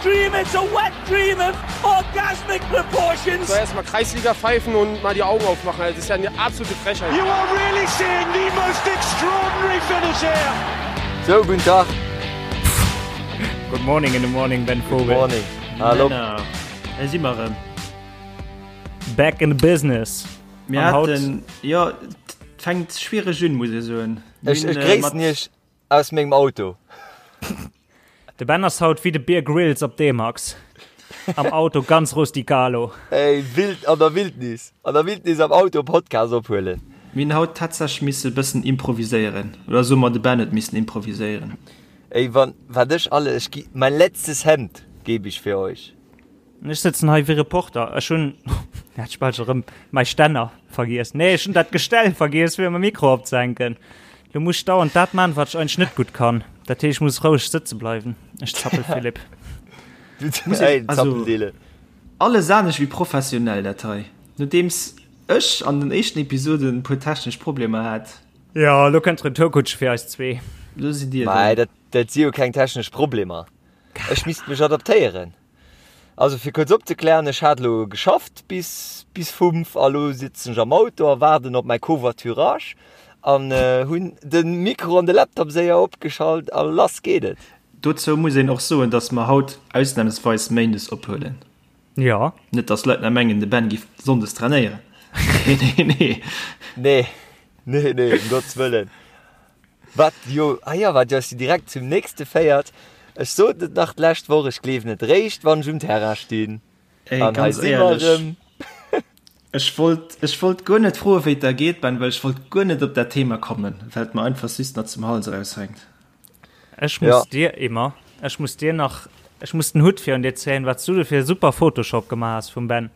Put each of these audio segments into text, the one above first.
dream, it's a wet dream of orgasmic proportions. So erstmal Kreisliga pfeifen und mal die Augen aufmachen. Das ist ja eine absolute Frechheit. You are really seeing the most extraordinary finish here. So, guten Tag. Good morning in the morning, Ben Vogel. Good morning. Hallo. Männer, hei si mer erëm. Back in the business. Mir An haut- haten, jo, et fänkt schwiereg un, muss ech soen. Mir Ech, hunn, ech äh, gréissen mat- Iech aus mengem Auto. De Ben ass haut wéi de Bear Grylls op D-Max. Am Auto ganz rusticalo. Ey, wild an der Wildnis. An der Wildnis am Auto Podcast ophuelen. Mir hunn haut tatsächlech misse e bëssen improviséieren. Oder soe mer, de Ben huet missen improviséieren. Ey, wann, wat ech alle, ech gi, mein letztes Hemd gebe ich für euch. Ech sëtzen hei wéi Reporter. Ech hunn, hat ech bal scho rëm mäi Stänner vergiess. Nee, ech hunn dat Gestell vergiess, fir mäi Mikro opzehänken. Lo muss ech dauernd dat man, wat ech eigentlech net gutt kann. Dat heescht, ech muss roueg sëtze bleiwen. Ech zappel, Philippe. Muss Ey, also, Zappeldele. Alles anescht wéi professionell dat hei. Nodeems ech an den éischten Episoden e puer technesch Problemer hat. Jo, lo kënnt d'Retourkutsche fir eis zwee. Lo sidd dir Mei, drun. dat, dat si jo keng technesch Problemer. Ech misst mech adaptéieren. Also fir kuerz opzeklären, ech hat elo geschafft bis bis 5 a lo sitzen ech am Auto a waarden op mäi Covoiturage an hunn de Mikro an de Laptop séier opgeschalt a lass geet et. Dozou muss een och soen, dass mer haut ausnamsweis méindes ophuelen. Jo. Net dass d'Leit nach mengen, de Ben giff sonndes trainéieren. Nee, nee, nee. Nee, nee, nee, ëm Gottes Wëllen. Wat jo, ah jo, wat jo si direkt zum nächste féiert. Ech sot et nach d'lescht Woch, ech gleewen et réischt, wann ech um Terrain stinn. Ey, An hei ganz si mer éierlech, erëm. ech wollt, ech wollt guer net froe wéi et der geet, Ben, well ech wollt guer net op dat Thema kommen, well et mer einfach just nach zum Hals eraushänkt. Ech muss Ja. dir immer, ech muss dir nach, ech muss den Hutt virun dir zéien, wat s du do fir e super Photoshop gemaach has vum Ben.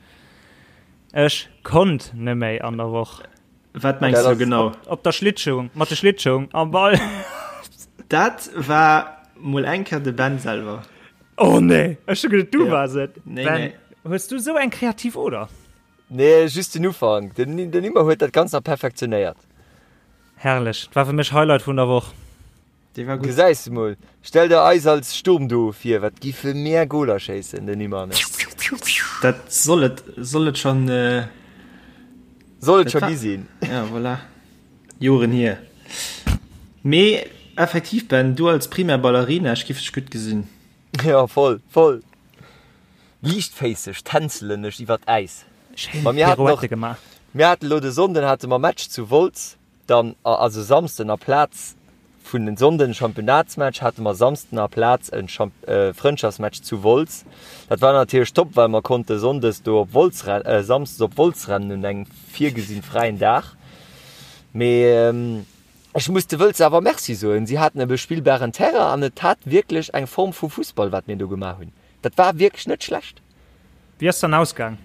Ech konnt neméi an der Woch. Wat mengs du genau? Op der Schlittschung, mat de Schlittschung am Ball. Dat war mol eng Kéier de Ben selwer. Oh nee, ech hu geduet du waars et. Nee, Ben, nee. hues du sou eng kreativ Oder? Nee, just den Ufank. Den, den Immo huet dat Ganzt nach perfektionéiert. Herrlech, dat war fir mech Highlight vun der Woch. Dee war gutt. Gesäis de mol. Stell der eis als Sturmduo vir, wat giffe mär Goler schéissen, den Immo an ech. Dat soll et, soll et schon, Soll et dat scho war, gi sinn. ja, voilà. Joren hier. Mee effektiv, Ben, du als Primär Ballerina, ech giff dech gutt gesinn. Ja, voll, voll. Liichtféisseg tänzelen ech iwwer d'Äis. Schéin Ma mir haten och, Pirouette gemaach. mir haten elo de Sonnden hate mer Match zu Wolz. Dann, also Samsden aplaz vun den Sonnden Championnatsmatch hate mer Samsden aplaz en Frëndschaftsmatch zu Wolz. Dat war natierlech top, well mer konnte Sonndes do op Wolz Samsdes op Wolz rennen un engem virgesinn fräien Dag. Mee ech muss de Wëlzer awer Merci soen, si haten e bespillbaren Terrain an et hat wierklech eng Form vu Fussball wat mir do gemaach hunn. Dat war wierklech net schlecht. Wéi ass dann ausgaang?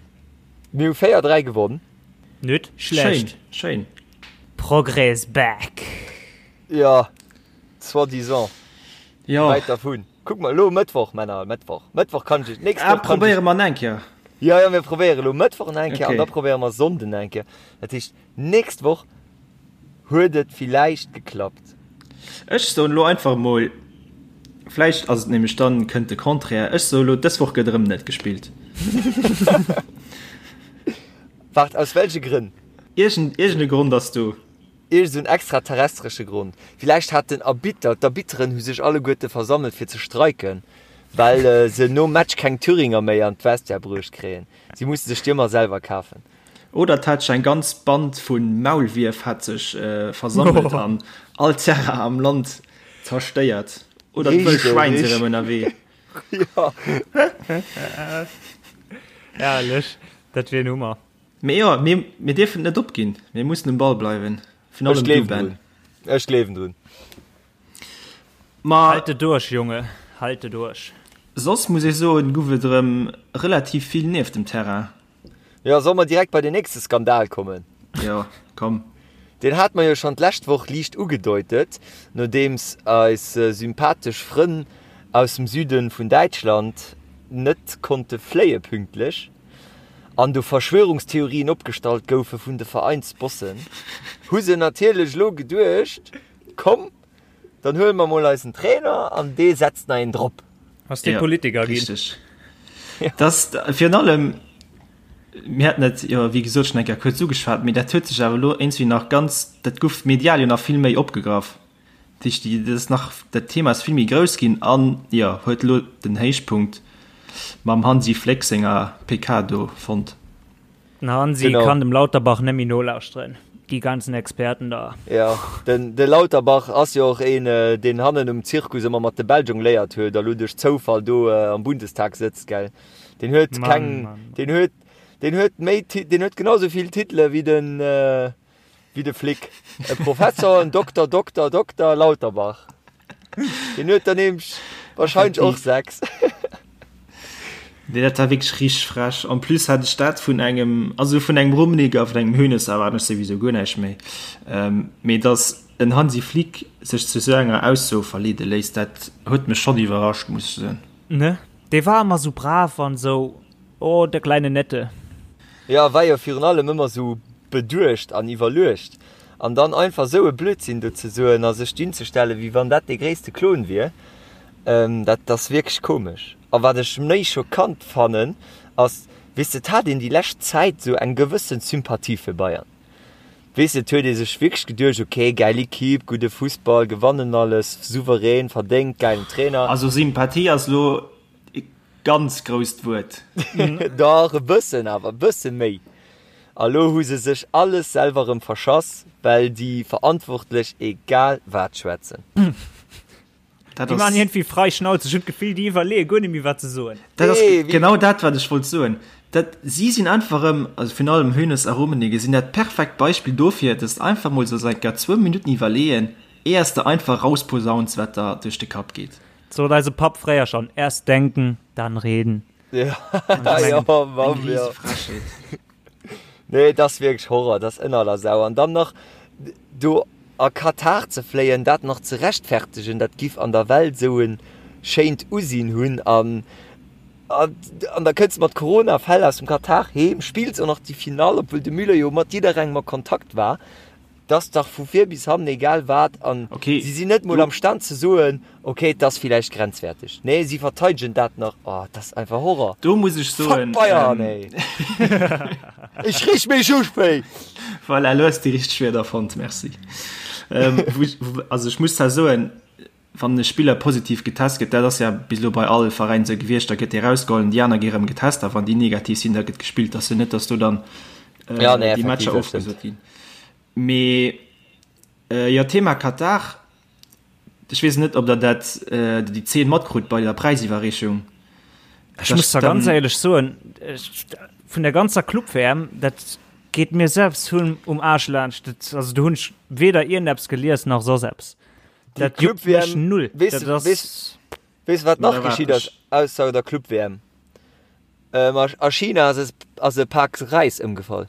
Mir hu 4, 3 gewonn. Nüt schlecht. Schéin, schéin. Progrès back. Jo, soi-disant. Jo. Wäit dervun. Kuck mol, elo Mëttwoch, Männer, Mëttwoch. Mëttwoch kann ech, nächst Ah, Woch kann ech. probéiere mer eng Kéier. Jo, jo, mir probéiere elo Mëttwoch nach eng Kéier an Okay. da probéiere mer Sonnden nach eng Kéier. Dat heescht, nächst Woch huet et villäicht geklappt. Ech soen elo einfach emol, vläicht ass et nämlech dann, kënnt de Contraire, ech soe elo, dës Woch gëtt erëm net gespillt. Waart, aus welche Grënn? Iergend, iergend e Grond ass do. Iergend esou en extraterrestresche Grond. Villäicht hat den Arbitter, d'Arbitteren hu sech alleguerte versammelt fir ze streiken, well se nom Match keng Thüringer méi an d'Vestiaire bruecht kréien. Si musse sech déi ëmmer selwer kafen. Oder et hat sech eng ganz Band vu Maulwierf hat sech versammelt an all Terrain am Land zerstéiert. Oder d'wëll Schwäin si rëm ënnerwee. Jo. Herrlech, dat wier en Hummer. Mee jo, mir, mir dierfen et net opginn. Mir mussen um Ball bleiwen. Virun Ech allem du, gleewen Ben. drun. Ech gleewen drun. Ma Halte duerch, Junge, halte duerch. soss muss ech soen, guff et erëm relativ vill nieft dem Terrain. Jo, solle mer direkt bei den nächste Skandal kommen? Jo, komm. Deen hate mer jo schonn d'lescht Woch liicht ugedeutet, nodeems eis sympathesch Frënn aus dem Süde vun Däitschland net konnte fléie pünktlech an do Verschwörungstheorien opgestallt goufe vun de Veräinsbossen, hu se natierlech elo geduecht, komm, dann huele mer mol eisen Trainer an dee setzt nach een drop. Ass dee Politiker ginn. Richteg. Dass virun allem, mir haten et jo wéi gesot schonn eng Kéier kuerz ugeschwat, mee dat huet sech awer elo iergendwéi nach ganz, dat gouf medial jo nach vill méi opgegraff. Dat heescht, déi, dat ass nach, dat Thema ass vill méi grouss ginn an, jo, huet elo den Héichpunkt mam Hansi Fléck senger PK do fonnt. Den Hansi Genau. kann dem Lauterbach net méi nolauschteren, déi ganzen Experten da. Ja, den, de Lauterbach ass jo och een, deen hannen um Zirkus ëmmer mat de Bäll jongléiert huet a lo duerch Zoufall do am Bundestag sëtzt, gell? Deen huet Mann, keng, Mann, Mann. deen huet, deen huet méi, deen huet genau sou vill Titele wéi den, wéi de Flick. E Professor, en Dokter, Dokter, Dokter Lauterbach. Deen huet der nämlech wahrscheinlech och 6. Nee, dat war wierklech richteg frech. En plus hat ech dat vun engem, also vun engem Rummenigge a vun engem Hoeneß erwaarden ech souwisou guer näischt méi. Mee datt en Hansi Flick sech zu esou enger Ausso verleede léisst, dat huet mech schonn iwwerrascht, muss ech soen. Ne, dee war ëmmer sou brav an sou, oh, der kleine Nette. Jo, war jo virun allem ëmmer sou beduecht an iwwerluecht. An dann einfach sou e Blödsinn do ze soen a sech dunzestellen, wéi wann dat dee gréisste Klon wier, dat ass wierklech komesch. A wat ech méi schockant fannen, ass, weess de, et hat een déi lescht Zäit sou eng gewëssen Sympathie fir Bayern. Weess de, et huet ee sech wierklech geduecht, ok, gäil Equipe, gudde Fussball, gewannen alles, souverän, verdéngt, gäilen Trainer. Also Sympathie ass elo e ganz grousst Wuert. Dach, e bëssen awer, e bësse méi. A lo hu se sech alles selwer erëm verschass, well déi Verantwortlech egal wat schwätzen. Dat Déi maachen ass, iergendwéi frei Schnauze. Ech hunn d'Gefill, déi iwwerleeë guer net méi, wat se soen. dat ass Nee, wéi. genau dat, wat ech wollt soen. Dat, si sinn einfach erëm, also virun allem Hoeneß a Rummenigge sinn dat perfekt Beispill dofir, dass de einfach mol solls eng Kéier zwou Minutten iwwerleeën, éiers de einfach rausposauns, wat der duerch de Kapp geet. Sot eise Papp fréier schonn, Erst denken, dann reden. Ja, Ech ja, mengen, Mann, Eng ja. riese Frechheet. Nee, et ass wierklech Horror, dat ass ënner aller Sau. An dann nach do a Katar ze fléien, dat nach ze rechtfertegen, dat giff an der Welt esou e schéint Usinn hunn. An, an da kënns de mat Corona-Fäll aus dem Katar heem, spills och nach déi Finall, obwuel de Müller jo mat jidderengem a Kontakt war. 't ass dach vu vir bis hannen egal wat an Okay, si sinn net mol do. am Stand ze soen, okay, 't ass villäicht grenzwäerteg. Nee, si verteidegen dat nach. Oh, 't ass einfach Horror. Do muss ech Fuck soen, Bayern, ähm, ey! Ech reeg mech op, ey! Voilà, elo hues de déi richteg Wierder fonnt, merci. Ähm, wou ech, wou, also ech muss zwar soen, wann e Spiller positiv getest gëtt, dat ass ja bis elo bei all Veräin esou gewiescht, da gëtt dee rausgeholl an déi aner gi rëm getest a wann déi negativ sinn, da gëtt gespillt. Ass jo net, datt do dann äh, Ja, nee, déi effektiv, Matcher dat stëmmt. ofgesot ginn. Mee äh, jo, Thema Katar, ech weess net, ob der dat äh, déi Zeen matkrut bei der Präisiwwerreechung. Ech muss da ganz éierlech soen, ech, vun der ganzer Club-WM, dat geet mir selbst hunn um Aarsch laanscht. Dat, also do hunn ech weder iergendeppes gelies nach soss eppes. Déi Dat juckt mech Club-WM, null. weess Dat de, ass weess, weess wat Ma nach da waart geschitt ass ech. ausser der Club-WM? Ähm, a, a China ass es, ass e Pak Räis ëmgefall.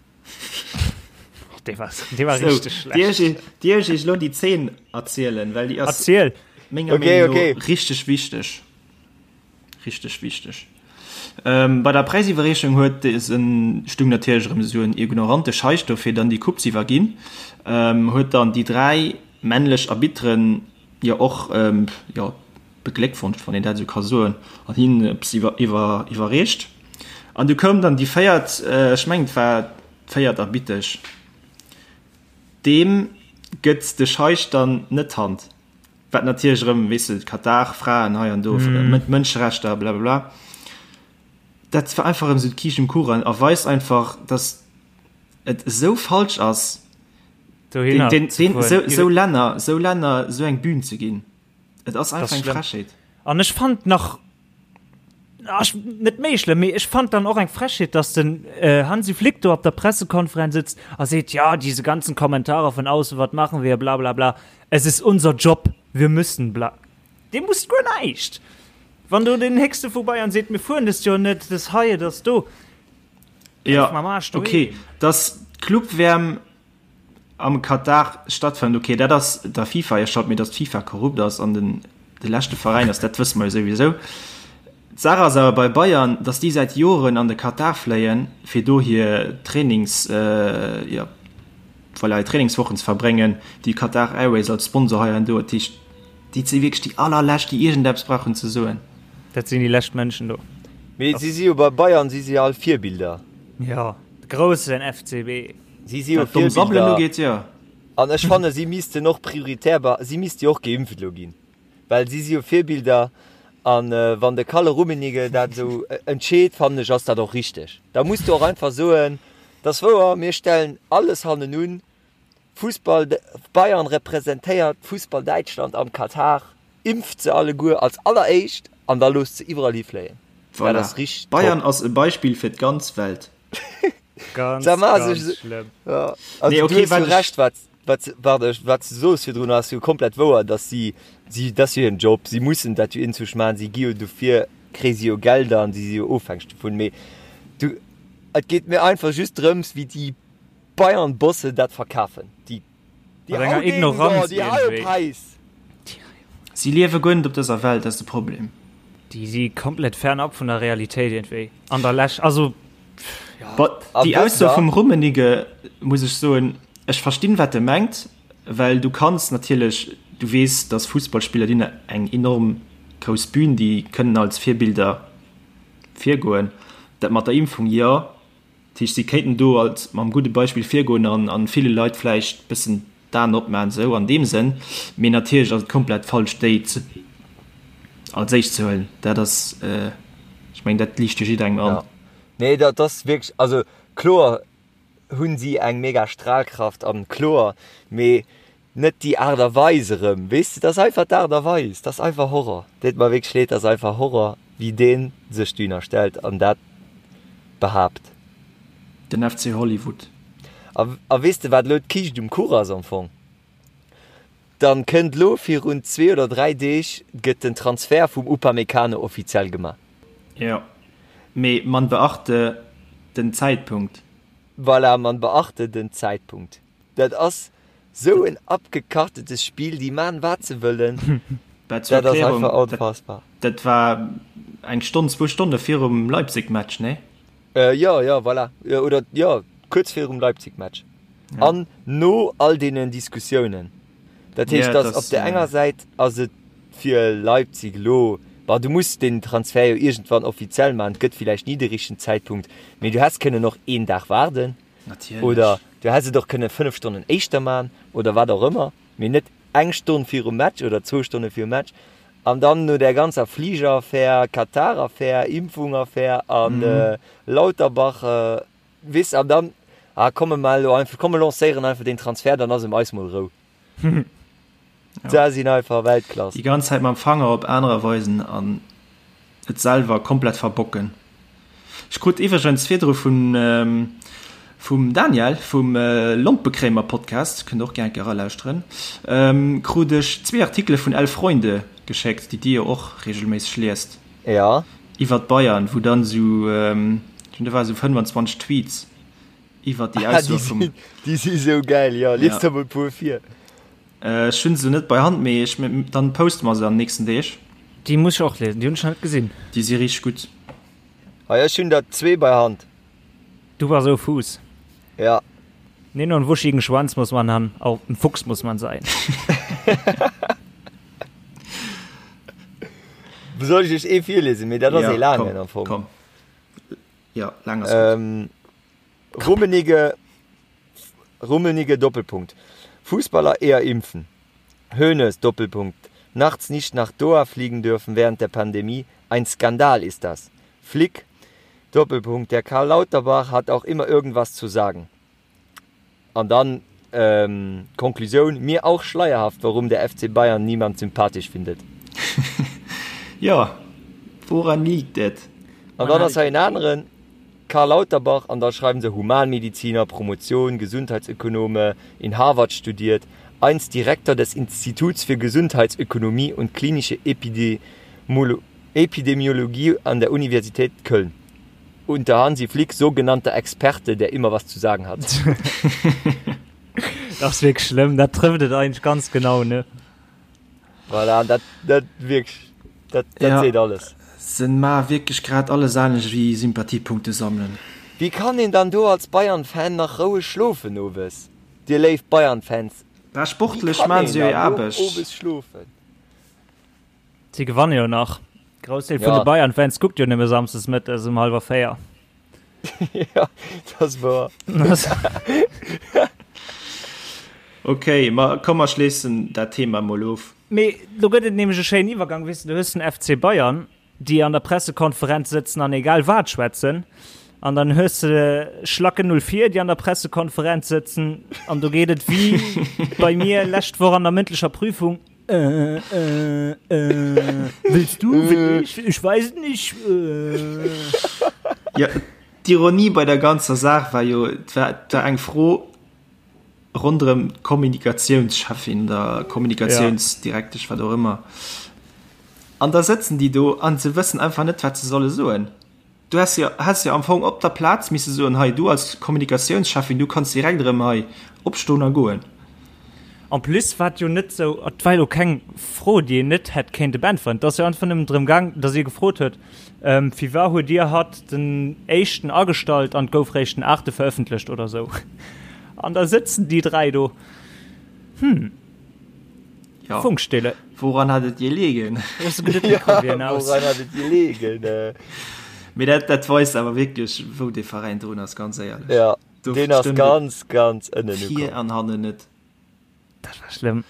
Dee war, dee war So, richteg Dir schlecht. ech, dir ech iech elo déi Zeen erzielen, well déi ass Erziel. menger Okay, Meenung no okay. richteg wichteg. Richteg wichteg. Ähm, bei der Präisiwwerreechung huet en, stung natierlech erëm esou en ignorante Scheich do fir dann déi Coupe ze iwwerginn, ähm, huet dann déi 3 männlech Arbitteren jo och, ähm, jo, begléckwonscht, wann een dat esou ka soen, an hinnen eppes iwwer, iwwer, iwwerreecht. An du koum dann déi véiert, ech mengen et war d'véiert Arbittesch, deem gëtt de Scheich dann net d'Hand. Wat natierlech erëm, weess de, Katar, Fraen hei an do, Mënscherechter, blablabla. Dat war einfach erëm esou d'Kiischt um Kuchen a weist einfach, datt et esou falsch ass, Dohinner den, den, ze den, fueren. esou, esou Länner, esou Länner esou eng Bühn ze ginn. Et ass Das einfach eng schlëmm. Frechheet. An ech fand nach ach, net méi schlëmm, mee ech fand dann och eng Frechheet, dass den äh, Hansi Flick do op der Pressekonferenz sitzt a seet, ja, diese ganzen Kommentare von außen, wat machen wir, bla bla bla, es ist unser Job, wir müssen bla. Dee muss guer näischt. Wann do den Héchste vu Bayern seet, mir fueren dëst Joer net, das hei, das do. Ja, Mam Aarsch doheem. okay, dass d'Club-WM am Katar stattfënnt, ok, dat ass der FIFA hir Schold, mee datt d'FIFA korrupt ass an den de leschte Veräin ass, dat wësse mer jo souwisou. D'Saach ass awer bei Bayern, datt déi säit Joren an de Katar fléien, fir do hir Trainings, jo, voilà, hir Trainingswochen ze verbréngen, déi Qatar Airways als Sponsor hei an do. Dat heescht, déi si wierklech déi allerlescht, déi iergendeppes brauchen ze soen. Dat sinn déi lescht Mënschen do. Mee si si jo bei Bayern si si all Virbilder. Jo, de groussen FCB. Si si jo Wat domm Sabbelen Virbilder. ugeet, jo. An ech fanne si missten och prioritär, si misste jo och geimpft elo ginn, well si si jo Virbilder. An wann de Kalle Rummenigge dat esou entscheet, fannen ech, ass dat och richteg. Da muss du och einfach soen, dat ass wouer, mir stellen alles hannenun, Fussball, Bayern representéiert Fussball Däitschland am Katar, impft se alleguer als alleréischt an da loosst se iwwerall hi fléien. Dat Voilà. ass richteg Bayern top. ass e Beispill fir d'ganz Welt. Ganz, Sag mal, ganz also, schlëmm. ja, also Nee, du okay, hues jo wat ech. Recht, wat, wat, warte, wat du soos virdrun ass jo komplett wouer, dass si, si, dat ass jo hiren Job, si mussen dat jo inzwusch maachen, si gi jo dofir, kréie si jo Gelder an si si jo ofhängeg dovun, mee du, et geet mir einfach just drëms, wéi déi Bayern Bosse dat verkafen déi déi Mat enger Haudegen do, Ignoranz déi iergendwéi. Haupeis. Si liewe guer net op dëser Welt, dat ass de Problem. Déi si komplett fernab vun der Realitéit iergendwéi an der Läsch, also ja. But A déi wësst Ausso der, vum Rummenigge, muss ech soen, ech verstinn wat e mengt, well du kanns natierlech, du weess, datt Fussballspiller, déi hunn eng enorm grouss Bühn, déi kënnen als Virbilder virgoen. Dat mat der Impfung, jo, Dat heescht, si kéinten do als mam gudde Beispill virgoen an an ville Leit vläicht bëssen d'Aen opmaachen, esou an deem Sënn. Mee natierlech ass et komplett falsch, déi ze als éischt ze huelen. Dat ass, ech mengen, dat liicht jo jidderengem an. Ja. Nee, dat ass wierklech, also kloer hunn si eng mega Strahlkraft an kloer, mee Net déi Aart a Weis erëm, weess de, dat ass einfach d'Aart a Weis, dat ass einfach Horror. Deet mer wierklech leed, dat ass einfach Horror, wéi dee sech dohinner stellt an dat behaapt. Den FC Hollywood. A, a weess de, wat elo d'Kiischt um Kuch ass am Fong? Dann kënnt elo virun zwee oder dräi Deeg gëtt den Transfert vum Upamecano offiziell gemaach. Jo, mee man beachte den Zäitpunkt. Voilà, man beachte den Zäitpunkt. Dat ass sou en abgekartetes Spill, déi maan wat se wëllen, Bah, zur dat ass Erklärung, einfach dat, onfassbar. dat war eng Stonn, zwou Stonne virum Leipzig-Match, nee? Äh, jo, jo, voilà, oder jo, kuerz virum Leipzig-Match Ja. an no all deenen Diskussiounen. Dat heescht, Ja, dass dat op ass, der enger Säit ass et fir Leipzig elo, bon, du muss den Transfer jo iergendwann offiziell maachen, et gëtt villäicht ni de richtegen Zäitpunkt, mee du häss kënnen och een Dag waarden. Natierlech. Oder du häss et och kënne 5 Stonnen éischter man oder wat och ëmmer, mee net eng Stonn virum Match oder zwou Stonne virum Match. An dann no där ganzer Fligeraffär, Katar-Affär, Impfung-Affär an Lauterbach, weess, an dann, ah komm mir maachen elo einfach, komm mir lancéieren einfach deen Transfer, dann ass ëm eis mol Rou. Da sinn einfach Weltklass. Déi ganz Zäit mam Fanger op anerer weisen an et selwer komplett verbocken. Ech krut iwwregens virdru vun vum Daniel vum Lompekréimer Podcast, kënnt och gär eng Kéier eralauschteren, krut ech zwee Artikele vun Elf Freunde geschéckt, déi dir jo och regelméisseg liest, Ja. iwwert Bayern, wou dann esou, ech mengen do ware sou 25 Tweets iwwert déi Ausso vum. Déi si sou gäil, jo. Lies der mol e puer vir. Ech hunn se net bei Hand, mee ech, dann poste mer se an den nächsten Deeg. Déi muss ech och liesen, déi hunn ech nach net gesinn. Déi si richteg gutt. Hei, ech hunn der zwee bei Hand. Du bass ou Fuuss. Ja. Nee, no en wuschigen Schwanz muss man han, auch en Fuchs muss man sein. Soll ech iech ee virliesen? Mee dat ass ee Ja, laangen komm, am Fong. komm. Ja, laang ass gutt. Rummenigge, Rummenigge, Doppelpunkt. Fußballer eher impfen. Hoeneß, Doppelpunkt. Nachts nicht nach Doha fliegen dürfen während der Pandemie, ein Skandal ist das. Flick, Doppelpunkt. Der Karl Lauterbach hat auch immer irgendwas zu sagen. An dann Konklusioun, Mir auch schleierhaft, warum der FC Bayern niemand sympathisch findet. Jo, woran liegt et? An dann ass hei en aneren, Karl Lauterbach, an da schreiwen se Humanmediziner, Promotion, Gesundheitsökonome, in Harvard studiert, einst Direktor des Instituts für Gesundheitsökonomie und klinische Epidemiologie an der Universität Köln. Unter Hansi Flick, sogenannter Experte, der immer was zu sagen hat. Dat ass wierklech schlëmm, dat trëfft et eigentlech ganz genau, ne? Voilà, dat, dat wierklech, dat, dat Ja. seet alles. Se maa wierklech grad alles anescht wéi Sympathiepunkte sammelen. Wéi kann een dann do als Bayern-Fan nach roueg schlofen owes? Dir léif Bayern-Fans, Bah, wéi sportlech kann maan een se jo hir dann do Aarbecht. owes schlofen? Si gewanne jo nach. Groussdeel vun de Bayern-Fans kuckt jo nëmme samsdes mëttes um hallwer 4. Ja, dat ass wouer. Ok, ma komm mer schléissen dat Thema mol of. Mee do gëtt et nämlech e schéinen Iwwergang, weess de, du hues den FC Bayern, déi an der Pressekonferenz sëtzen an egal wat schwätzen, an dann hues de Schlacken 04, déi an der Pressekonferenz sëtzen an do geet et wéi bei mir lescht Woch an der mëndlecher Prüfung, Äh, äh, äh, willst du, will ich, ich weiß nicht. Äh. Ja, d'Ironie bei der ganzer Saach war jo, et war, et war eng Fro ronderëm d'Kommunikationscheffin oder Kommunikationsdirektesch, wat och ëmmer. An da sëtzen déi do an se wëssen einfach net, wat se solle soen. Du häss jo, häss jo am Fong op der Plaz misse soen, hei, du als Kommunikatiounscheffin, du kanns direkt erëm hei opstoen a goen. En plus war et jo net sou, et war jo keng Fro, déi een net hätt kéinte beäntweren. Et ass jo einfach nëmmen drëm gaang, datt ee gefrot huet, Firwat huet Dir hatt den éischten agestallt an et gouf réischt den aachte verëffentlecht oder sou. An da sëtzen déi 3 do, hm. Ja. Funkstille. Woran hat et gelegen? Ja, woran hat et gelegen? Mee dat, dat weist awer wierklech, wou dee Veräin drun ass, ganz éierlech. Ja, Do deen ass ganz, ganz ënnen ukomm. Vir an hannen net. Dat war schlëmm.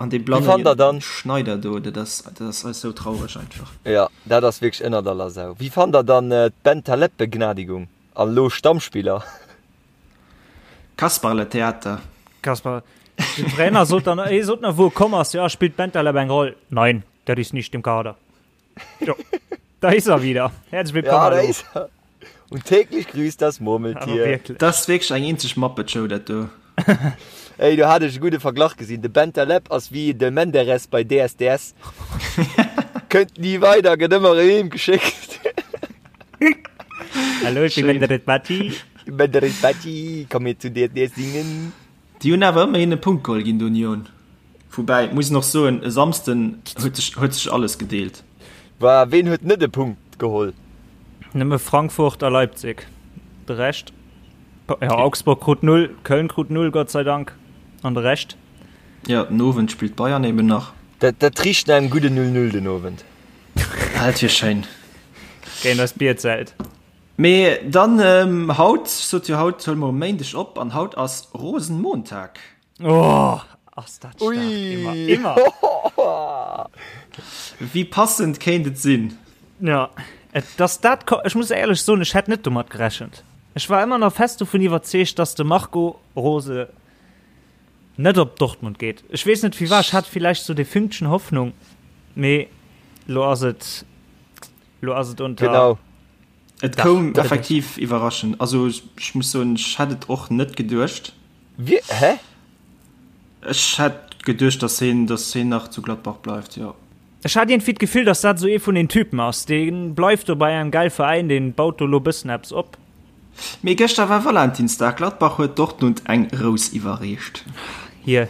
An dee blanne dann Schneider do, dat ass, dat ass eis sou traureg einfach. Ja, dat ass wierklech ënnert aller Sau. Wéi fannt der dann d'Bentaleb-Begnadigung an elo Stammspiller? Kasperletheater. Kasper, den Trainer sot dann, hie sot nach, wou e komm ass, ja, spielt Bentaleb eng Roll? Nein, der ist nicht im Kader. Jo, da ist er wieder. Herzlich willkommen. Ja, da ist er. Und täglich grüßt das Murmeltier. Dat ass wierklech eng eenzeg Muppet-Show, dat do. Ey, do hat ech e gudde Verglach gesinn. De Bentaleb ass wéi de Menderes bei DSDS. Kënnt ni weider, gëtt ëmmer erëm heem geschéckt. Hallo, ich bin Menderes Bati. Menderes Bati, komm mir zu DSDS singen. Déi hunn awer ëmmerhin e Punkt geholl géint Union. Woubäi, muss een och soen, e Samsden huet sech, huet sech alles gedeelt. Wa ween huet net e Punkt geholl? Nëmme Frankfurt a Leipzig. De Rescht, jo, Augsburg krut null, Köln krut null, Gott sei Dank, an de Rescht. Jo, den Owend spillt Bayern eben nach. Dat, dat richt no engem gudden 0, 0 den Owend. Dat wier schéin. Géint eist Bierzelt. Mee dann haut, ech sot jo haut huele mer um Méindeg op an haut ass Rosenmontag. Oh, ass dat staark. Ui. Immer, immer. Wéi passend kéint et sinn? Ja, et, dass dat ko-, ech muss éierlech soen, ech hätt net domat gerechent. Ech war ëmmer nach fest dovun iwwerzeegt, dass de Marco Rose net op Dortmund geet. Ech weess net firwat, ech hat villäicht sou dee Fünkchen Hoffnung, mee lo ass et, lo ass et unter. Genau. Et koum effektiv iwwerraschend. Also ech muss soen, ech hätt et och net geduecht. Wie, hä? Ech hätt geduecht, dass hien, dass hien nach zu Gladbach bleift, jo. Ech hat iergendwéi d'Gefill, dass dat esou ee vun den Typen ass, dee bleift do bei engem gäil Veräin, dee baut do lo bëssen eppes op. Mee gëschter war Valentinsdag, Gladbach huet Dortmund eng Rous iwwerreecht. Hier,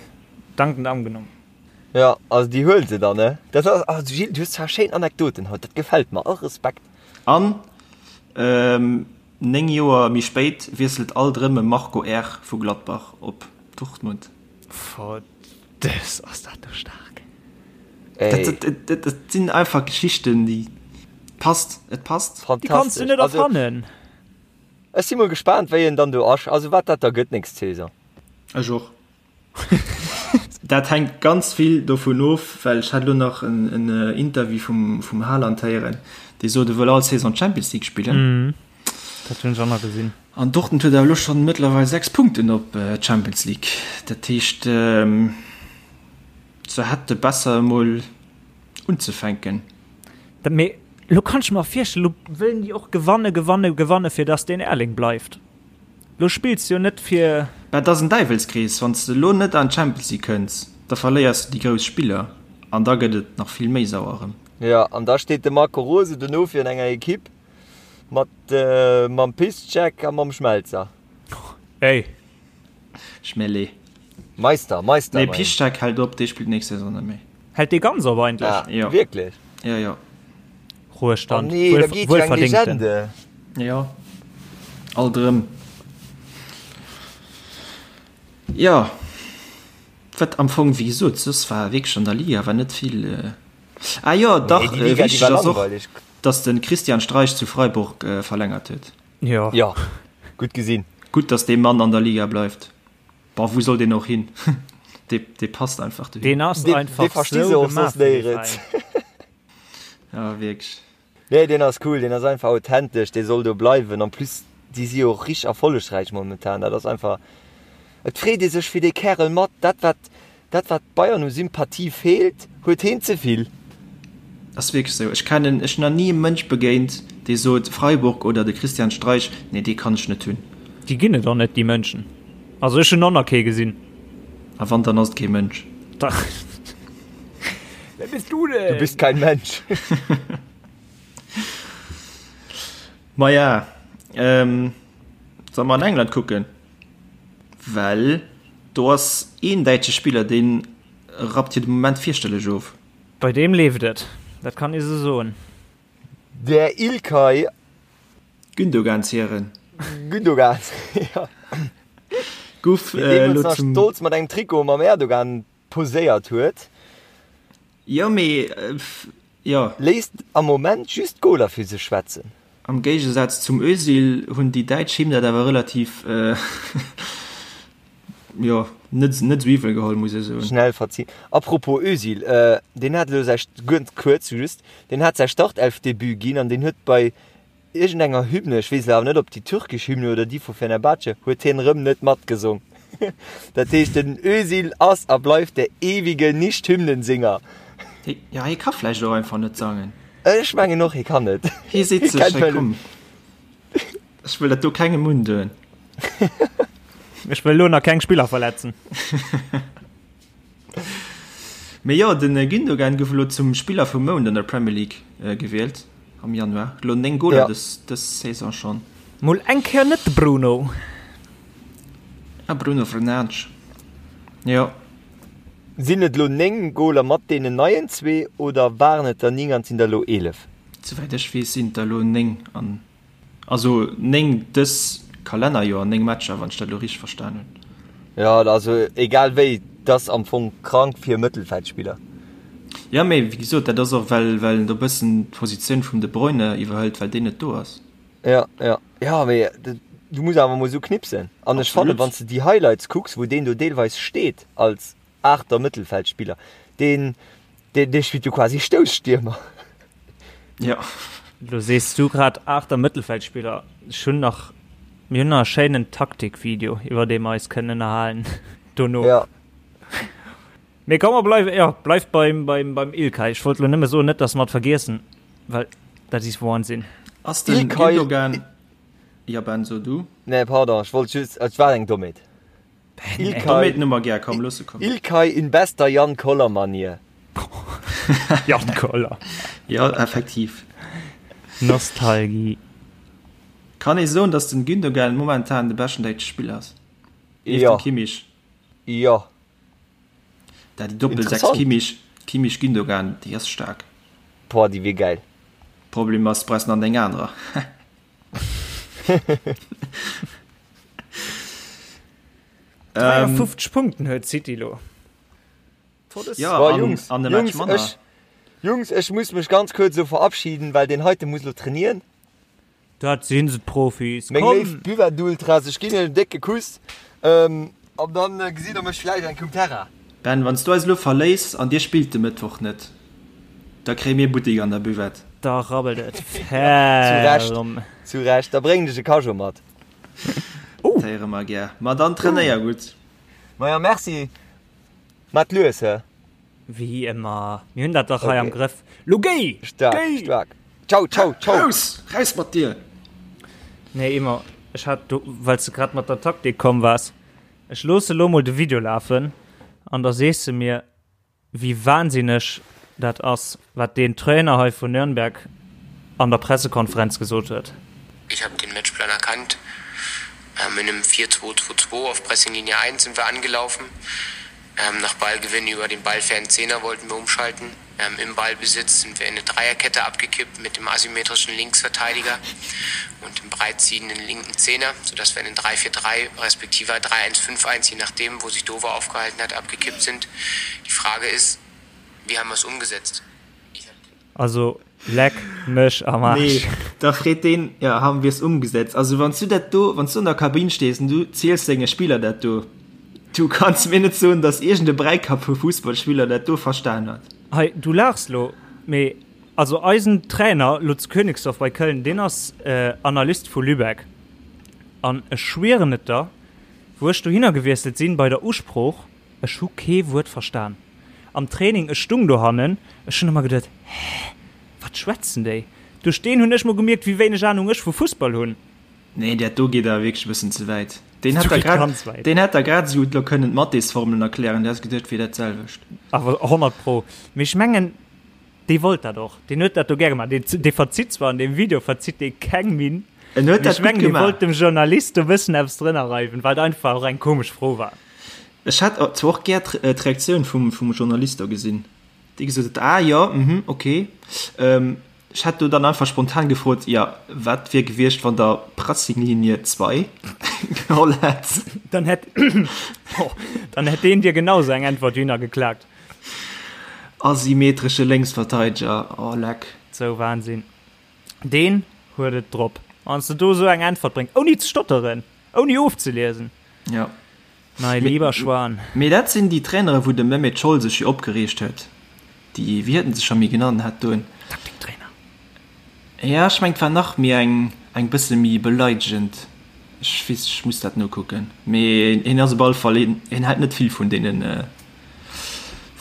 dankend angenommen. Jo, also déi huelen se dann, ne? Dat ass, also Gilles, du hues zwar schéin Anekdoten haut, dat gefält mer, all Respekt. An 9 Joer méi spéit wiesselt alt erëm e Marco R. vu Gladbach op Dortmund. Verdëss, ass dat do staark. Dat, dat sinn einfach Geschichten, déi passt, et passt. Déi kanns du net erfannen. Ech si mol gespaant, wéi en dann do ass, also wat dat da gëtt nächst Saison. Ech och. Dat hänkt ganz vill dovun of, well ech hat elo nach en Interview vum Haaland héieren, dee sot, e wëll all Saison d'Champions League spillen. Dat hunn ech och nach gesinn. An Dortmund huet awer elo schonn mëttlerweil 6 Punkten op d'Champions League. Dat heescht, se hätte besser emol unzefänken. Mee elo kann ech mer virstellen, elo wëllen déi och gewanne, gewanne, gewanne fir datt deen Erling bleift. Lo spills jo net fir. Mä et ass en Däiwelskrees, wann s de elo net an d'Champions League kënns, da verléiers de déi grouss Spiller an da gëtt et nach vill méi sauer erëm. Jo, an da steet de Marco Rose dono virun enger Ekipp mat mam Piszczek a mam Schmelzer. Hey! Schmelle. Meister, Meister. Nee, Piszczek hält op, dee spillt nächst Saison net méi. Hält dee ganz op eigentlech? Ah, jo. Wierklech? Jo, jo. Ruhestand. Oh nee, da geet jo eng Legende. Jo, alt erëm. Jo, wat am Fong, wéi gesot, soss war wierklech an der Liga war net vill. Ah jo, dach, Nee, déi Liga, déi wichteg war ass och, langweileg. dass de Christian Streich zu Freiburg verlängert huet. Jo. Jo, gutt gesinn. Gutt, dass dee Mann an der Liga bleift. Boah, wou soll deen och hin? Dee, dee passt einfach dohin. Deen ass Dee, dee einfach versti se sou och gemaach soss fir dee néierens. Veräin. Ja, wierklech. Nee, deen ass cool, deen ass einfach authentesch, dee soll do bleiwen. En plus, déi si jo och richteg erfollegräich momentan. Dat ass einfach, et freet ee sech fir dee Kärel mat. Dat wat, dat wat Bayern u Sympathie feelt, huet heen ze vill. Ass wierklech esou. Ech kennen, ech hunn nach ni e Mënsch begéint, dee sot, Freiburg oder de Christian Streich, nee, dee kann ech net hunn. Déi ginn et och net, déi Mënschen. Also ech hunn och nach kee gesinn. A wann, dann ass et kee Mënsch. Dach. Wer bist du denn? Du bist kein Mensch. Maja, ähm, solle mer an England kucken? Well do ass een däitsche Spiller, dee rappt jo de Moment fierchterlech of. Bei deem leeft et, dat kann ee sou soen. Der Ilkay. Gündogan Zieren. Gündogan, jo. Guff Deen deemools elo nach zum. stolz mat engem Trikot mam Erdogan poséiert huet. Jo, mee jo. Léisst am Moment just d'Goler fir sech schwätzen. Am Géigesaz zum Özil hunn déi Däitsch him dat awer relativ, jo, net net esou iwwel geholl, muss ech soen. Schnell verzien. Apropos Özil, deen hat elo säi, ganz kuerz just, deen hat säi Startelfdebut ginn an deen huet bei Iergendenger Hymne, ech weess elo awer net ob déi türkesch Hymne oder déi vu Fenerbahce, huet hien erëm net matgesong. Dat heescht den Özil ass a bleift der ewige Nicht-Hymnensinger. Jo, hie ka vläicht och einfach net sangen. Ech mengen och, hie kann net. Hie seet sech, hey komm, ech wëll dat do kengem undoen. Ech wëll elo nach keng Spiller verletzen. Mee jo, den Gündogan gouf elo zum Spiller vum Mount an der Premier League gewielt am Januar. Elo 9 Goler dës Saison schonn. Mol eng Kéier net de Bruno. Ah, Bruno Fernandes, jo. Sinn et elo 9 Goler mat deenen neien zwee oder waren et der 9 an et sinn der elo 11? Souwäit ech weess sinn et der elo 9 an Also 9 dës Kalennerjoer, 9 Matcher, wann ech dat elo richteg verstan hunn. Jo, also egal wéi, et ass am Fong krank fir e Mëttelfeldspiller. Jo, mee wéi gesot, dat ass och well well en do bëssen d'Positioun vum De Bruyne iwwerhëlt, well deen net do ass. Jo, jo, jo, mee du muss awer emol esou knipsen. An ech fannen, wann s de déi Highlights kucks, wou deen do deelweis steet als Aachter Mëttelfeldspiller, deen dee spillt jo quasi Stousstiermer. Jo. Lo sees du grad aachter Mëttelfeldspiller. Ech hunn nach, mir hunn nach e schéinen Taktikvideo, iwwer dee mer eis kënnen ënnerhalen dono. Ja. Mee komm, mer bleiwen, jo, bleift beim, beim, beim Ilkay. Ech wollt lo nëmme soen, net dass mer et vergiessen, well dat is Wahnsinn. Ass den Ilkay. Gündogan, jo Ben, so du. Nee, pardon, ech wollt just, et war eng Dommheet. Ilkay, Ilkay in bester Jan Koller Manier. Jan Koller. Ja, effektiv. Nostalgie. Kann ee soen, datt den Gündogan momentan de beschten däitsche Spiller ass? Nieft Jo. dem Kimmich. Jo. Da déi Doppel 6 Interessant. Kimmich, Kimmich Gündogan, déi ass staark. Boah, déi wier gäil. Problem ass, du brauchs nach 9 anerer. Ähm, 53 Punkten huet City lo. Ja, Boah, an, Jungs, an de Match Jungs, manner. ech, Jungs, ech muss mech ganz kuerz so verabschieden, well den heite muss lo trainieren. Dat sinn se d'Profis. Meng Komm. léif Buvette-Ultras, ech ginn iech en décke Kuss. Ähm, an dann äh, gesitt der mech vläicht eng Cum Terra. Ben, wann s du eis elo verléiss an dir spillt de Mëttwoch net, da kréie mir Buttek an der Buvette. Da rabbelt et Zu Recht, ferm. zu Recht. Da bréngen ech e Cageot mat. Dat héiere mer gär. Ma dann trainéier gutt. Maja, merci. Mat lues, hä? Wéi ëmmer. Mir hunn dat dach hei am Okay. Grëff. Lo géi! Staark, Géi! staark. Ciao, ciao, ciao. Raus! Raus mat dir! Nee, Emma, ech hat do, well s de grad mat der Taktik komm waars, ech loosse lo mol de Video lafen an da sees de mir, wéi wahnsinneg dat ass, wat deen Trainer hei vun Nürnberg an der Pressekonferenz gesot huet. Ich habe den Matchplan erkannt. Ähm, in einem 4-2-2-2 auf Pressinglinie 1 sind wir angelaufen. Ähm, nach Ballgewinn über den ballfernen Zehner wollten wir umschalten. Ähm, Im Ballbesitz sind wir in eine Dreierkette abgekippt mit dem asymmetrischen Linksverteidiger und dem breitziehenden linken Zehner, sodass wir in den 3-4-3 respektive 3-1-5-1, je nachdem, wo sich Dover aufgehalten hat, abgekippt sind. Die Frage ist, wie haben wir es umgesetzt? Also leck mech am Arsch. Nee, da freet deen, ja, haben wir es umgesetzt? Also wann s du dat do, wann s du an der Kabinn stees an du ziels denge Spiller dat do, du kanns mir net soen, dass iergend e Bräikapp vu Fussballspiller dat do verstan huet. Hei, du laachs lo, mee also eisen Trainer lo zu Königsdorf bei Köln, deen ass Analyst vu Lübeck an ech schwieren et der, wou ech dohinner gewiesselt sinn bei der Usprooch, Ech hu kee Wuert verstan. Am Training, ech stung dohannen, ech hunn ëmmer geduet, Hä, wat schwätzen déi? Duerch deen hunn ech mol gemierkt, wéi wéineg Anung ech vu Fussball hunn. Nee, dat do geet awer wierklech e bëssen ze wäit. Deen hätt der grad, deen hätt der grad esou gutt elo kënnen d'Mathésformelen erklären, du häss geduecht, et wier dat selwecht. Awer 100 pro. Mee ech mengen, Dee wollt dat och. Deen huet dat do gär gemaach. Deen, dee verzitt zwar an deem Video verzitt dee keng Minn. En huet dat gutt gemaach. Dee wollt dem Journalist do bëssen eppes drënner reiwen, wat einfach och eng komesch Fro war. Ech hätt zwar och gär d'Reaktioun vum, vum Journalist do gesinn, dee gesot huet, Ah jo, mhm, okay. Ech hätt do dann einfach spontan gefrot, Jo, wat wier gewiescht, wann Der Pressinglinie 2 geholl hätt? Dann hätt, dann hätt deen dir genau sou eng Äntwert dohinner geklaakt. Asymmetresche Lénksverteideger, oh leck. Sou Wahnsinn. Deen huet et drop. Wann s de do sou eng Äntwert bréngs, ouni ze stotteren, ouni ofzeliesen. Ja. Mei lieber Schwan. Mee dat sinn déi Trainere wou de Mehmet Scholl sech jo opgereegt huet. Déi, wéi huet en sech scho méi genannt hat doen? Taktiktrainer. Ja, ech mengen et war nach méi eng, eng bësse méi beleidegend. Ech weess, ech muss dat nokucken. Mee hien ass op alle Fall een, hien hält net vill vun deenen,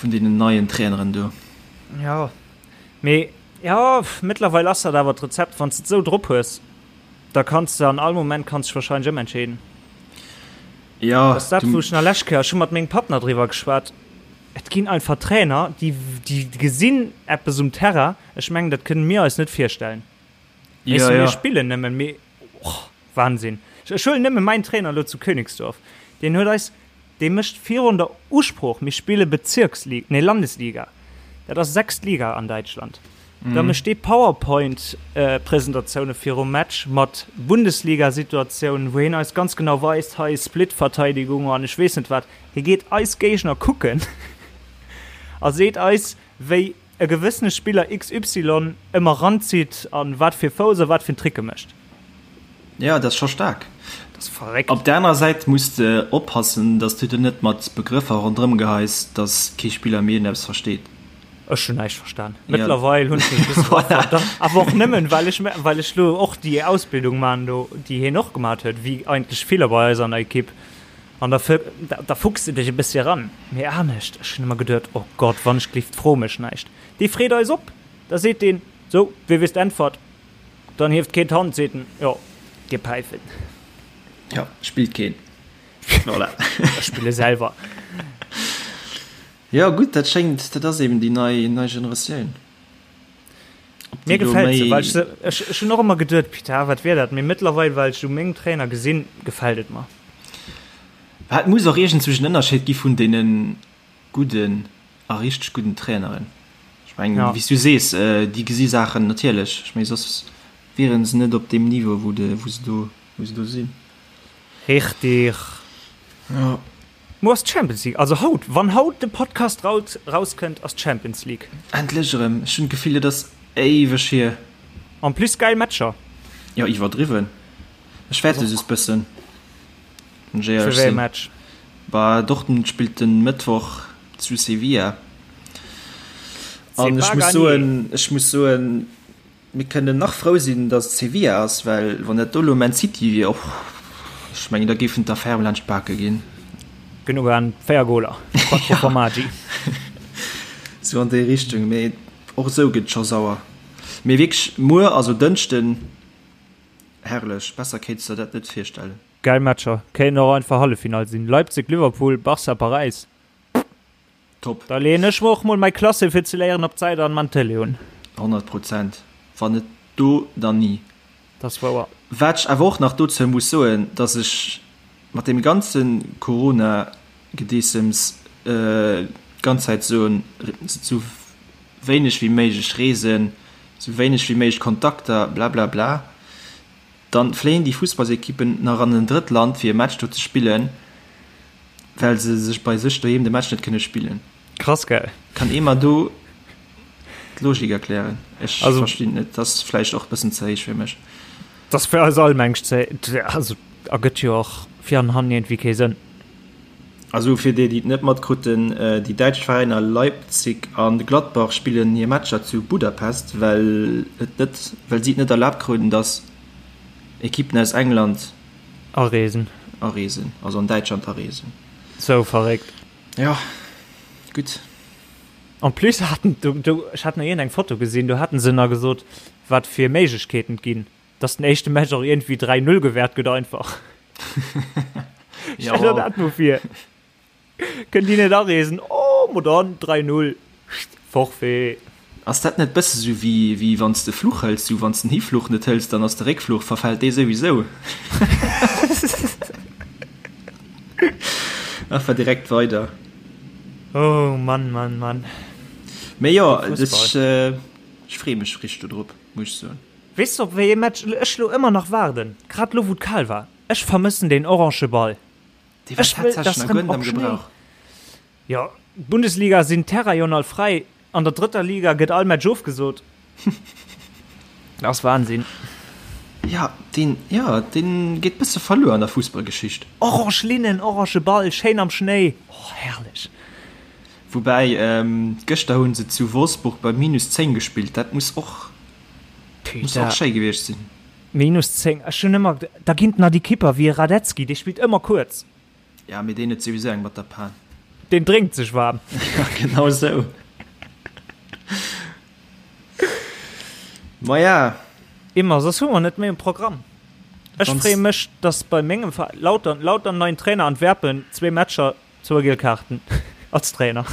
vun deenen neien Traineren do. Jo, mee jo, mëttlerweil ass dat awer d'Rezept, wann s de et esou drop hues, da kanns de an all Moment kanns dech wahrscheinlech ëmentscheeden. Jo, Dat ass dat, wou ech nach lescht Kéier, ech hu mat mengem Papp nach driwwer geschwat, et ginn einfach Trainer, déi, déi gesinn eppes um Terrain, Ech mengen, dat kënnen mir eis net virstellen. Weess du, mir spillen nëmmen, mee oh, Wahnsinn. Ech huelen nëmme mäin Trainer elo zu Königsdorf, deen huet eis, dee mécht virun der Usprooch, mir spille Bezirksliga, nee Landesliga, dat ass sechst Liga an Däitschland, da mécht dee Powerpoint-Presentatioune virum Match mat Bundesliga-Situatiounen, wou hien eis ganz genau weist, hei Split-Verteidigung an ech weess net wat. Hie geet eis Géigner kucken a seet eis, wéi e gewëssene Spiller XY ëmmer ranzitt an wat fir Fouss a wat fir Tricke mécht. Jo, dat ass scho staark. Dat ass verréckt. Op der anerer Säit muss de oppassen, dass du der net mat Begrëffer ronderëm geheis, dass kee Spiller méi iergendeppes versteet. Ech hunn näischt verstan. Mëttlerweil hunn ech mech e bësse voilà. Awer och nëmmen, well ech, well ech lo och déi Ausbildung man do, déi hien och gemat huet, wéi eigentlech viller bei eis an der Ekipp. An da, da fuchs de dech e bëssi eran. Mee anescht, ech hunn ëmmer geduet, oh Gott, wann ech gelift, fro mech näischt. Dee freet eis op, da seet deen, sou, wee weess d'Äntwert? Dann hieft keen d'Hand, seet en, jo, dir Päifen. Jo, spillt keen. Voilà. Ech spille selwer. Jo, gutt, dat schéngt, dat ass eben déi nei, nei Generatioun. Mir gefält se, well ech se, ech, ech hunn och ëmmer geduet, Pita, wat wier dat? Mee mëttlerweil, well ech u mengem Trainer gesinn, gefält et mer. Et muss och iergendzwousch en Ënnerscheed gi vun deene gudden a richteg gudden Traineren. Ech mengen, ja. wéi s du sees, déi gesi Saachen natierlech. Ech mengen, soss wiere se net op deem Niveau, wou de, wou se do, wou se do sinn. Richtig. Ja. Muer ass d'Champions League, also haut, wann haut de Podcast raus rauskënnt, ass d'Champions League. Endlech erëm, ech hunn d'Gefill et ass éiweg hier. En plus geil Matcher. Jo iwwerdriwwen, ech fäerte just bëssen, wann ech éierlech Fir wéi e sinn. Match? Bah Dortmund spillt den Mëttwoch zu Sevilla C'est an ech pas muss gagné. soen, ech muss soen, Mir kënnen nach frou sinn, datt et Sevilla ass, well wann dat do elo Man City wier, och, ech mengen, da géifen d'Affäre laanscht d'Bake ginn. Genuch an 4 Goler, quattro formaggi. Sou an déi Richtung, mee och esou gëtt et scho sauer. Mee wierklech, muer, also Dënschden, herrlech, besser kéints de der dat net virstellen. Gäil Matcher, kéinten och einfach Halleffinall sinn, Leipzig, Liverpool, Barca, Paräis. Top. Da leeën ech mer och mol mei Klasse fir ze léieren op d'Säit an man Tele un. 100 Prozent. Wann net do, dann ni. Dat ass wouer. Wat ech awer och nach dozou muss soen, dass ech mat deem ganze Corona-Gedeessems d'ganz Zäit soen, sou wéineg wéi méiglech reesen, sou wéineg wéi méiglech Kontakter, blablabla. Dann fléien déi Fussballsequippen nach an en drëtt Land fir e Match do ze spillen, well se sech bei sech doheem de Match net kënne spillen. Krass gell? Kann ee mer do. d'Logik erklären. Ech Also- verstinn et net. Dat ass vläicht och e bëssen ze héich fir mech. Dat ass fir eis all mengt ze, also ergëtt jo och vir an hannen iergendwéi kee Sënn. Also fir déi, déi et net matkrutten, déi däitsch Veräiner Leipzig an Gladbach spillen hir Matcher zu Budapest, well et net, well si et net erlaabt kruten, datt Ekippen aus England Areesen. areesen, also an Däitschland areesen. Sou verréckt. Jo, gutt. En plus haten do, do, ech hat nach iergendeng Foto gesinn, do haten se nach gesot, wat fir Méiglechkeeten et ginn. Dass den éischte Match och iergendwéi 3, 0 gewäert gëtt einfach. Stell der dat mol vir. Kënnt déi net areesen, oh mo dann 3, 0, Forfait. Ass dat net bësse sou wéi wéi wann s de Fluch hëls, sou wann s den Hifluch net hëls, dann ass de Réckfluch, verfält dee souwisou. Einfach direkt weider. Oh Mann, Mann, Mann. Mee jo, ech ech freeë mech richteg dodrop, muss ech soen. Weess de op wéi ee Match ech lo ëmmer nach waarden? Grad lo wou et kal war. Ech vermëssen deen orange Ball. Dee war Ech wëll tatsächlech dass nach rëm guer net op am Schnéi. Gebrauch. Jo, d'Bundesliga sinn d'Terrain jo all fräi. An der drëtter Liga gëtt all Match ofgesot. Dat ass Wahnsinn. Ja, deen, ja, deen geet bësse verluer an der Fussballgeschicht. Orange Linnen, orange Ball, schéin am Schnéi. Oh, herrlech. Woubäi, gëschter hu se zu Wolfsburg bei minus 10 gespillt. Dat muss och, muss och schéi gewiescht sinn. Minus 10, ech hunn ëmmer, da ginn et nach déi Kipper wéi e Radetzky, dee spillt ëmmer kuerz. Ja, mee deen huet souwisou eng mat der Pan. Deen drénkt sech waarm. Ja, genau esou. Maja. Immer, soss hu mer net méi um Programm. Ech freeë mech, dass bei mengem Veräin, Lautern, Lautern neien Trainer, Antwerpen, zwee Matcher, Zwou giel Kaarten als Trainer.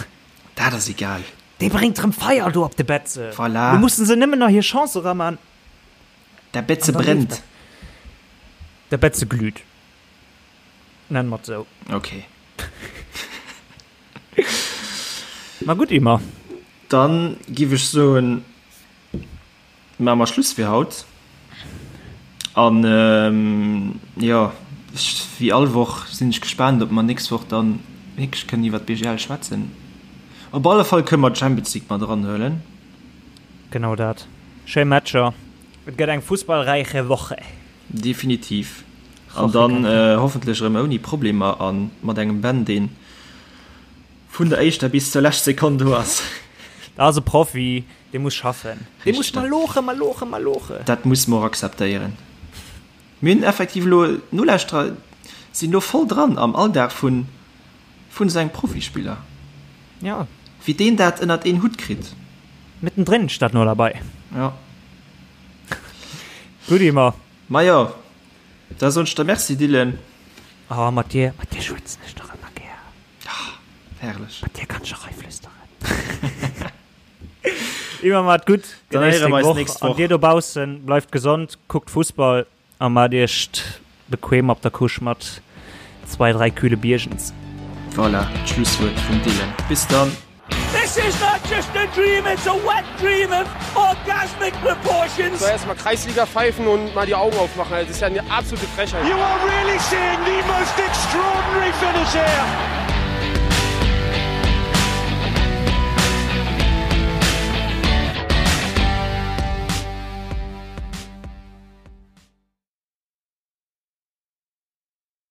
Dat ass egal. Dee bréngt rëm Feier do op de Betze. Voilà. Lo mussen se nëmmen nach hir Chance eraman. Der Betze brennt. Der Betze glüht. Nennen mer et sou. Ok. Ma gutt, Ymer. Dann giff ech soen. Maache mer Schluss fir haut. An jo, wéi all Woch sinn ech gespaant, ob mer nächst Woch dann wierklech kënnen iwwer d'BGL schwätzen. Op alle Fall kënne mer d'Champions League mat eranhuelen. Genau dat. Schéi Matcher. Et gëtt eng fussballräiche Woche. Definitiv. An dann hoffentlech erëm ouni Problemer a mat engem Ben, deen Vun der éischter bis zur lescht Sekonn do ass. Dat ass e Profi, dee muss schaffen. Dee muss maloche, maloche, maloche. Dat musse mer och akzeptéieren. Mir hunn effektiv elo, d'Nolauschterer sinn elo voll dran am Alldag vun vun esou engem Profispiller. Ja. Wéi deen dat ënnert een Hutt kritt. Mittendrin statt nur dabei. Ja. Gutt, Ymer. Majo, da soen ech der Merci, Dylan. Oh, mat dir, mat dir schwätzen ech dach ëmmer gär. Ah, herrlech. Mat dir kann ech och eiflüsteren. Immer mat gutt. Dann héiere mer eis nächst Woch. An dir dobaussen, bleift gesond, kuckt Fussball a maacht iech bequem op der Couche mat zwei, drei kühle Biergens. Voilà, d'Schlusswuert vum Dylan. Bis dann! This is not just a dream, it's a wet dream of orgasmic proportions. So erstmal Kreisliga pfeifen und mal die Augen aufmachen. Also, das ist ja eine absolute Frechheit. You are really seeing the most extraordinary finish here.